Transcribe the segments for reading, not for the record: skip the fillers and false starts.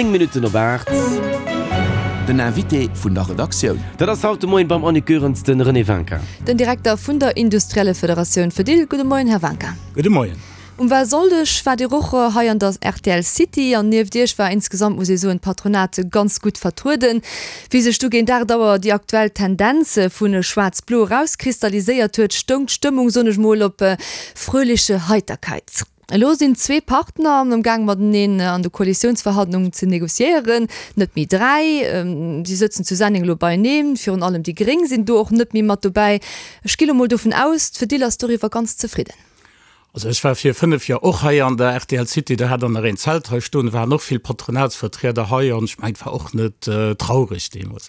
9 Minutten op 8. Den Invité vun der Redaktioun. Dat ass haut de Moien beim Annick Goerens de René Wincker. Den Direkter vun der Industrielle Federatioun Fedil. Gudde Moien, Här Wincker. Gudde Moien. Um Walsonndeg waart Dir och hei an der rtl City an nieft Iech war insgesamt, muss ee soen, d'Patronat ganz gutt vertrueden. Wéi sech du géint 8 Auer déi aktuell Tendenz vu Schwaarz-Blo erauskristalliséiert huet, stoung d'Stëmmung, soen ech mol, op fröhliche Heiterkeit. Elo sinn zwee Partner am Gaang mateneen an de Koalitiounsverhandlungen ze negociéieren, net méi 3. Si sëtzen zu Senneng elo beieneen, virun allem déi Gréng sinn do och net méi mat dobäi. Ech gi lo mol dovun aus, d'Fedil ass doriwwer ganz zefridden. Also ech war vir 5 Joer och hei an der rtl City, do hat der nach een Zelt hei stoen, do waren och vill Patronatsvertrieder hei an ech mengen, et war och net traureg deemools.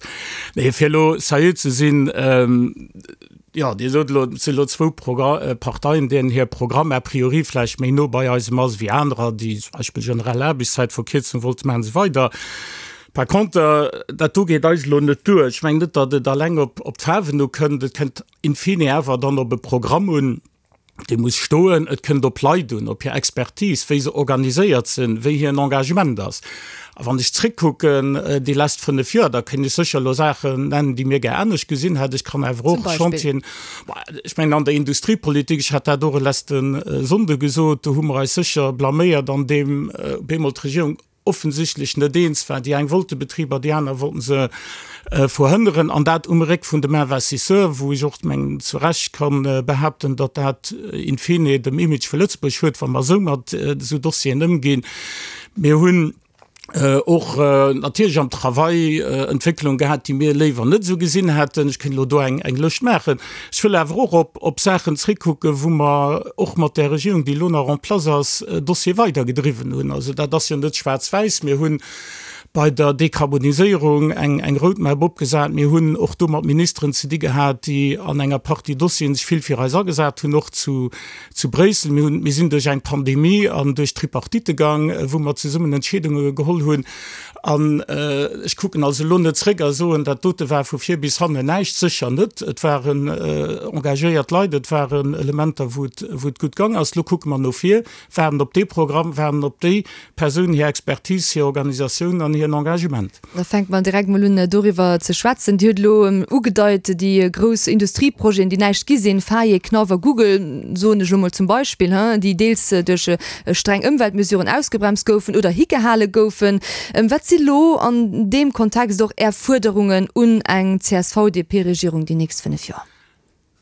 Mee fir elo seriö ze sinn, jo, Dir sot elo, et sinn elo zwou Parteien, deenen hir Programm a priori vläicht méi no bei eisem ass wéi anerer, déi zum Beispill generell Aarbechtszäitverkierzung wollte maachen an esou weider. Par contre, dat do geet eis elo net duer. Ech mengen net, datt et alleng op d'Faarwen ukënnt, et kënnt in fine awer dann op e Programm un, dee muss stoen, et kënnt op Leit un, op hir Expertise, wéi se organiséiert sinn, wéi hiren Engagement ass. A wann ech zréckkucken déi lescht 5 Joer, da kéint ech sécher elo Saachen nennen, déi mir gär anescht gesinn hätt. Ech kann awer och Chantieren, ech mengen an der Industriepolitik, ech hat dat och e leschte Sonnde gesot, do hu mer eis sécher blaméiert an deem op eemol d'Regierung offensichtlech net eens war. Déi eng wollte Betriber, déi aner wollten se verhënneren, an dat um Réck vun dem Investisseur, wou ech och mengen zu Recht ka behaapten, datt dat in fine dem Image vu Lëtzebuerg schuet, wa mer esou mat esou Dossieren ëmginn. Mir hunn och natierlech am Travail Entwécklung gehat, déi mir léiwer net esou gesinn hätten. Ech kéint elo do eng Lëscht maachen. Ech wëll awer och op, op Saachen zréckkucken, wou mer och mat där Regierung, déi elo nach en place ass, Dossiere weidergedriwwen hunn. Also dat ass jo net schwaarz-wäiss. Mir hu bei der Dekarboniséierung eng, eng Roadmap opgesat. Mir hunn och do mat Ministeren ze di gehat, déi an enger Partie Dossieren sech vill fir eis agesat hunn, och zu, zu Bréissel. Mir hunn, mir sinn duerch eng Pandemie an duerch d'Tripartite gaang, wou mer zesummen Entscheedunge geholl hunn. An ech kucken also elo net zréck a soen, dat dote war vu vir bis hannen näischt. Sécher net. Et waren engagéiert Leit, et waren Elementer, wou et, wou et gutt gang ass. Elo kucke mer no vir, waarden op dee Programm, waarden op déi Persoun hir Expertise, hir Organisatioun an hiren Engagement. Da fänke mer direkt mol un doriwwer ze schwätzen. Dir hutt elo ugedeit, déi grouss Industrieprojeten, déi näischt gi sinn, Faye, Knauf a Google, soen ech elo mol zum Beispill, déi deels duerch streng Ëmweltmesuren ausgebremst goufen oder higehale goufen. Wat si lo an deem Kontext och Är Fuerderungen un eng CSV-DP-Regierung déi nächst 5 Joer?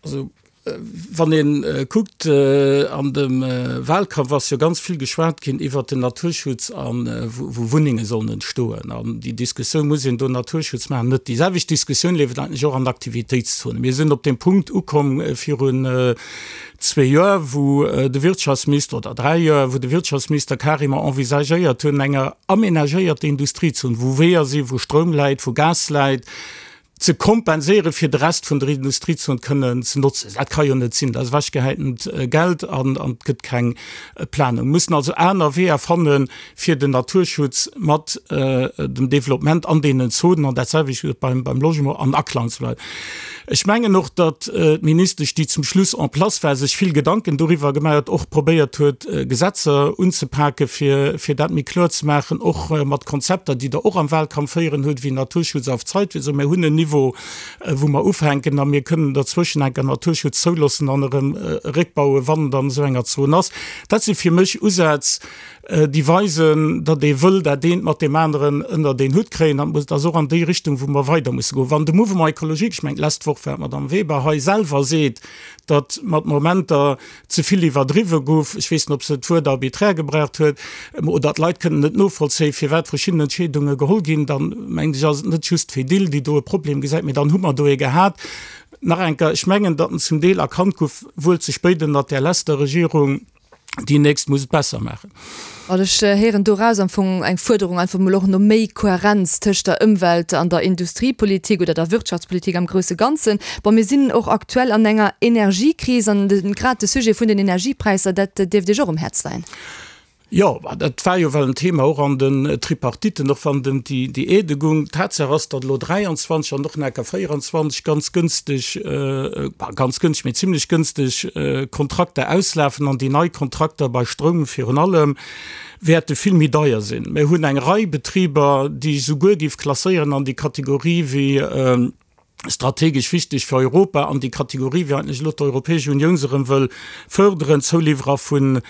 Also wann ee kuckt, an dem Wahlkampf ass jo ganz vill geschwat ginn iwwert den Naturschutz a wou Wunnenge sollen entstoen. An déi Diskussioun, muss een do Naturschutz maachen, net. Déi selwecht Diskussioun leeft eigentlech och an Aktivitéitszonen. Mir sinn op deem Punkt ukomm virun zwee Joer, wou de Wirtschaftsminister, oder dräi Joer, wou de Wirtschaftsminister carrément envisagéiert hunn, enger aménagéierter Industriezon, wou Weeër sinn, wou Stroum läit, wou Gas läit, ze kompenséieren, fir de Rest vun der Industriezon kënnen ze notzen. Dat ka jo net sinn. Dat ass ewechgehäitent Geld an et gëtt keng Planung. Mir mussen also aner Weeër fannen, fir den Naturschutz mat dem Développement an deenen Zonen, an dat selwecht gëllt beim, beim Logement, an Aklang ze bleiwen. Ech mengen och, datt d'Ministesch, déi zum Schluss en place war, sech vill Gedanken doriwwer gemaach huet, och probéiert huet, Gesetzer unzepake fir, fir dat méi kloer ze maachen, och mat Konzepter, déi Der och am Wahlkampf héieren hutt, wéi Naturschutz auf Zeit, wéi se soen, mir hunn en Niveau, wou mer ufänken a mir kënnen derzwëschen enker Naturschutz zouloossen an erëm réckbauen, wann et an esou enger Zon ass. Dat si fir mech Usätz, déi weisen, datt ee wëll dat eent mat deem aneren ënnert een Hutt kréien. An et ass och an déi Richtung, wou mer weider musse goen. Wann de Mouvement écologique, ech mengen d'lescht Woch war d'Madame Weber hei, selwer seet, datt mat Momenter ze vill iwwerdriwwe gouf, ech weess net, ob se d'Wuert arbiträr gebraucht huet, oder d'Leit kënnen net novollzéien, firwat verschidden Entscheedunge geholl ginn, dann, mengen ech, ass et net just d'Fedil, déi do e Problem gesäit, mee dann hu mer do ee gehat. Nach eng Kéier, ech mengen, datt en zum Deel erkannt gouf, wuel ze spéit ënnert där leschter Regierung, Déi nächst muss et besser maachen. An ech héieren doraus am Fong eng Fuerderung einfach emol och no méi Kohärenz tëscht der Ëmwelt an der Industriepolitik oder der Wirtschaftspolitik am grousse Ganzen. Bon, mir sinn och aktuell an enger Energiekris an grad de Sujet vun den Energiepräisser, dat dierft Iech och um Häerz leien. Jo, dat war jo well en Thema och an den Tripartiten, och wann et ëm déi Aidë goung. Tatsaach ass, datt elo 23 an och nach enker 24 ganz gënsteg, ganz gënschteg, mee zimlech gënsteg Kontrakter auslafen an déi nei Kontrakter bei Stroum virun allem wäerte vill méi deier sinn. Mir hunn eng Rei Betriber, déi ech souguer géif klasséieren an déi Kategorie wéi, strategesch wichteg fir Europa an déi Kategorie, wéi eigentlech elo d'Europäesch Unioun se erëm wëll förderen, Zouliwwerer vun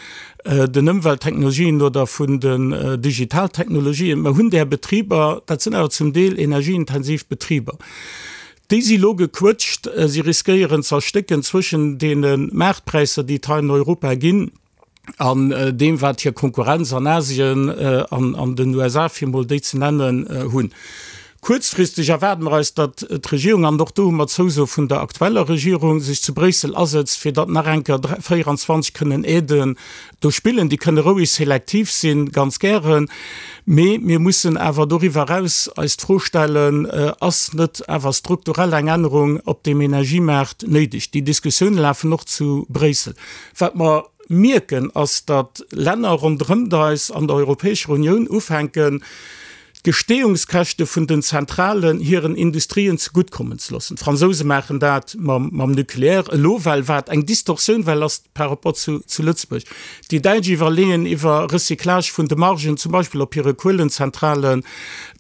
den Ëmwelttechnologien oder vun den Digitaltechnologien. Mer hunn där Betriber, dat sinn awer zum Deel energieintensiv Betriber, déi si elo gequëtscht, si riskéieren ze erstécken zwëschen deene Maartpräisser, déi et hei an Europa ginn. an deem wat hir Konkurrenz an Asien an an den USA, fir emol déi ze nennen, hunn. Kuerzfristeg erwaarde mer eis, datt d'Regierung, an och do hu mer d'Zouso vun der aktueller Regierung, sech zu Bréissel asëtzt, fir datt nach eng Kéier 24 kënnen Aiden do spillen. Déi kënne roueg selektiv sinn, ganz gären, mee mir mussen awer doriwwer eraus eis d'Fro stellen, Ass net awer strukturell eng Ännerung op deem Energiemaart néideg? Déi Diskussioune lafen och zu Bréissel. Wat mer mierken, ass, datt Länner ronderëmt eis an der Europäescher Unioun ufänken, d'Gestehungskäschte vun den Zentralen hiren Industrien zeguttkommen ze loossen. D'Fransouse maachen dat mam Nucléaire elo, well wat eng Distorsioun well ass par rapport zu Lëtzebuerg. Déi Däitsch iwwerleeën iwwer Recyclage vun de Margen, zum Beispill op hire Kuelenzentralen,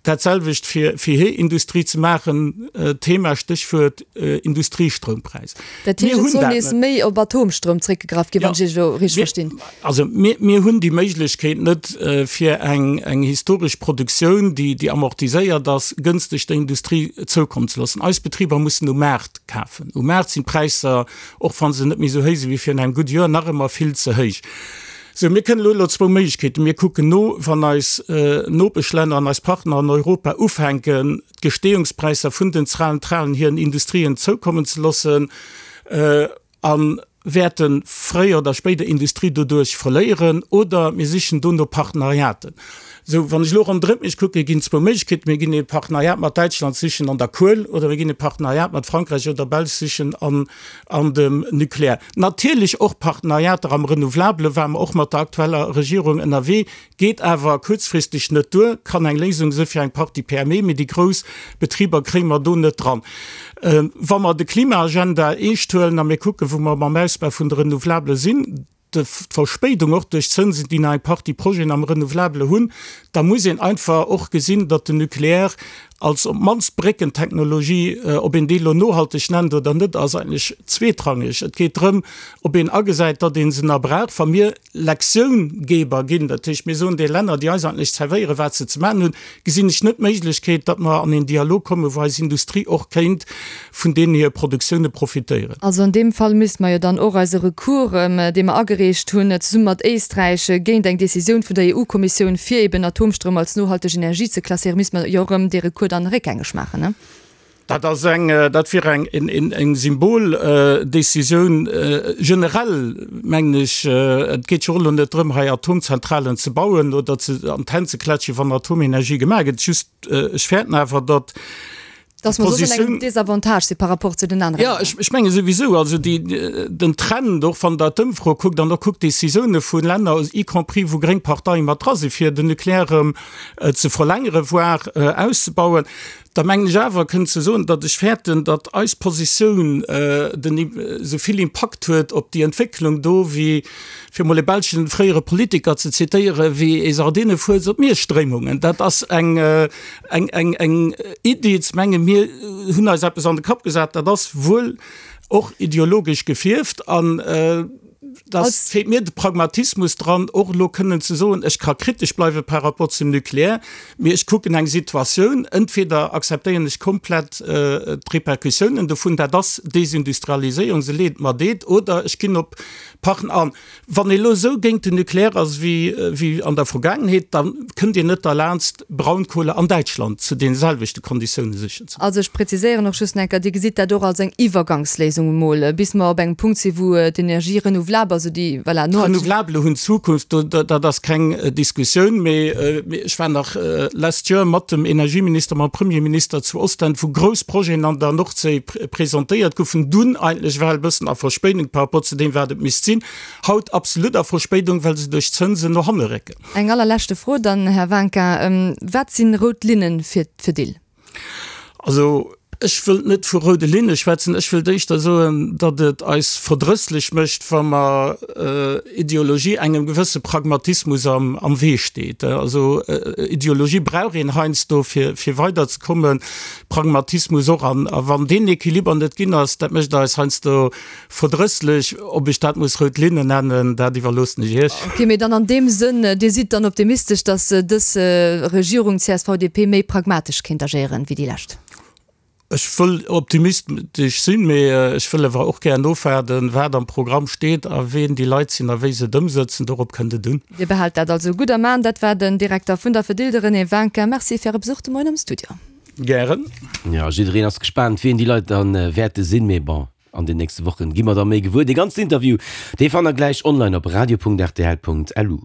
dat selwecht fir hir Industrie ze maachen, Thema, Stéchwuert Industriestroumpräis. Dat heescht, et soll nees méi op Atomstroum zréckgegraff ginn, wann ech Iech elo richteg verstinn? Also mir hunn déi Méiglechkeet net, fir eng historesch Produktioun, déi amortiséiert ass, gënschteg der Industrie zoukommen ze loossen. Eis Betriber mussen um Maart kafen. Um Maart sinn d'Präisser, och wa se net méi esou héich si wéi virun engem gudde Joer, nach ëmmer vill ze héich. Sou, mir kënnen elo elo zwou Méiglechkeeten. Mir kucken no, wann eis Nopeschlänner an eis Partner an Europa ufänken, d'Gestehungspräisser vun den Zentralen hiren Industrien zoukommen ze loossen a wäerte fréier oder spéider Industrie doduerch verléieren, oder mir sichen do no Partenariaten. Sou, wann ech elo ronderëm mech kucken, ginn et zwou Méiglechkeeten, Mir ginn ee Partenariat mat Däitschland sichen an der Kuel oder mir ginn e Partenariat mat Frankräich oder Belsch sichen an an dem Nucléaire. Natierlech och Partenariater am Renouvelabele ware mer och mat der aktueller Regierung ënnerwee. Geet awer kuerzfristeg net duer, kann eng Léisung si fir eng Partie PME, mee déi grouss Betriber kréie mer do net dran. Wa mer de Klimaagenda eescht huelen a mir kucken, wou mer mam Ausbau vun de Renouvelabele sinn, d'Verspéidung och duerch d'Zënsen, déi nach eng Partie Projeten am Renouvelabele hunn, da muss een einfach och gesinn, datt den Nucléaire als op d'mannst Bréckentechnologie, ob een déi elo nohalteg nennt oder net, ass eigentlech zweetrangeg. Et geet drëm, ob een agesäit, datt ee se nach brauch. Wa mir Lektioungeber ginn, dat heescht mir soen de Länner, déi eis eigentlech zerwéieren, wat se ze maachen hunn, gesinn ech net d'Méiglechkeet, datt mer an een Dialog kommen, wou eis Industrie och kéint vun deenen hir Produktioune profitéieren. Also an deem Fall misste mer jo dann och eise Recours, dee mer agereecht hunn, zesumme mat Éisträich, géint eng Décisioun vun der EU-Kommissioun, fir eben Atomstroum als nohalteg Energie ze klasséieren, misste mer jo erëm dee Recours dann réckgängeg maachen, ne? Dat ass eng, dat wier eng, eng Symboldécisioun. Generell mengen ech, et geet jo och elo net drëm, hei Atomzentralen ze bauen oder ze an d'Hänn ze klätschen, wann Atomenergie gemaach gëtt. Just, ech fäerten awer, datt Dass mer soss an engem Désavantage si par rapport zu den anere Länner. Jo, ech menge souwisou. Also déi, den Trend, och wann Der d'Ëmfro kuckt an och kuckt d'Décisioune vu Länner, y compris wou gréng Parteie mat dra sinn, fir den Nucléaire erëm ze verlängere voire auszebauen, Da mengen ech awer kënnen ze soen, datt ech fäerten, datt eis Positioun den esou vill Impakt huet op déi Entwécklung do wéi, fir emol e belschen fréiere Politiker ze zitéieren, wéi ee Sardinefues op Mierstréimungen. Dat ass eng eng eng eng Iddi ze mengen, mir hunn eis eppes an de Kapp gesat, dat ass wuel och ideologesch gefierft an, Da feelt mir de Pragmatismus dran, och elo kënnen ze soen, ech ka kritesch bleiwe par rapport zum Nucléaire, mee ech kucken eng Situatioun, entweder akzeptéieren ech komplett d'Repercussiounen dovun, dat ass Desindustrialiséierung, se leet mer deet, oder ech ginn op Partner an. Wann ee elo esou géint den Nucléaire ass wéi an der Vergaangenheet, da kënnt een net derlaanst, Braunkohle an Däitschland zu deene selwechte Konditioune sichen ze. Also ech präziséieren och just nach eng Kéier, Dir gesitt dat och als eng Iwwergangsléisung emol, bis mer op engem Punkt sinn, wou d'Energie renouvelable. D'Renouvelable, also déi, voilà, nohalteg. D'Renouvelable hunn d'Zukunft, do, dat ass keng Diskussioun. Mee ech war nach last year mat dem Energieminister, mam Premierminister zu Ostend, wou grouss Projeten an der Nordséi presentéiert goufen, dunn eigentlech well e bëssen a Verspéidung par rapport zu deem, wat et misst sinn. Haut absolut a Verspéidung, well se duerch d'Zënsen no hanne récken. Eng allerleschte Fro dann, Här Wanka, Wat sinn rout Linne fir d'Fedil? Also, ech wëllt net vu roude Linne schwätzen. Ech wëllt éischter soen, datt et eis verdrësslech mécht, wa mer Ideologie engem gewësse Pragmatismus am Wee steet. Also, Ideologie brauch een heiansdo, fir weiderzekommen, Pragmatismus och. A wann deen Equiliber net ginn ass, dat mécht eis heiansdo Verdrësslech, ob ech dat muss rout Linne nennen, dat iwwerloossen ech Iech. Ok, mee dann an deem Sënn, Dir sidd dann optimistesch, datt dës Regierung CSV-DP méi pragmatesch kéint agéieren wéi déi lescht? Ech wëll optimistesch sinn, mee ech wëll awer och gär nofwaarden, wat am Programm steet a ween déi Leit sinn a wéi se et ëmsëtzen. Dorop kënnt et un. Dir behaalt dat also gutt am An. Dat war den Direkter vun der Fedil, de René Winkin. Merci fir Äre Besuch de Moien am Studio. Gären. Jo, jiddereen ass gespaant, wien déi Leit dann wäerte sinn, mee bon. An den nächste Wochen gi mer da méi gewuer. Dee ganzen Interview, dee fannt der gläich online op radio.rtl.lu.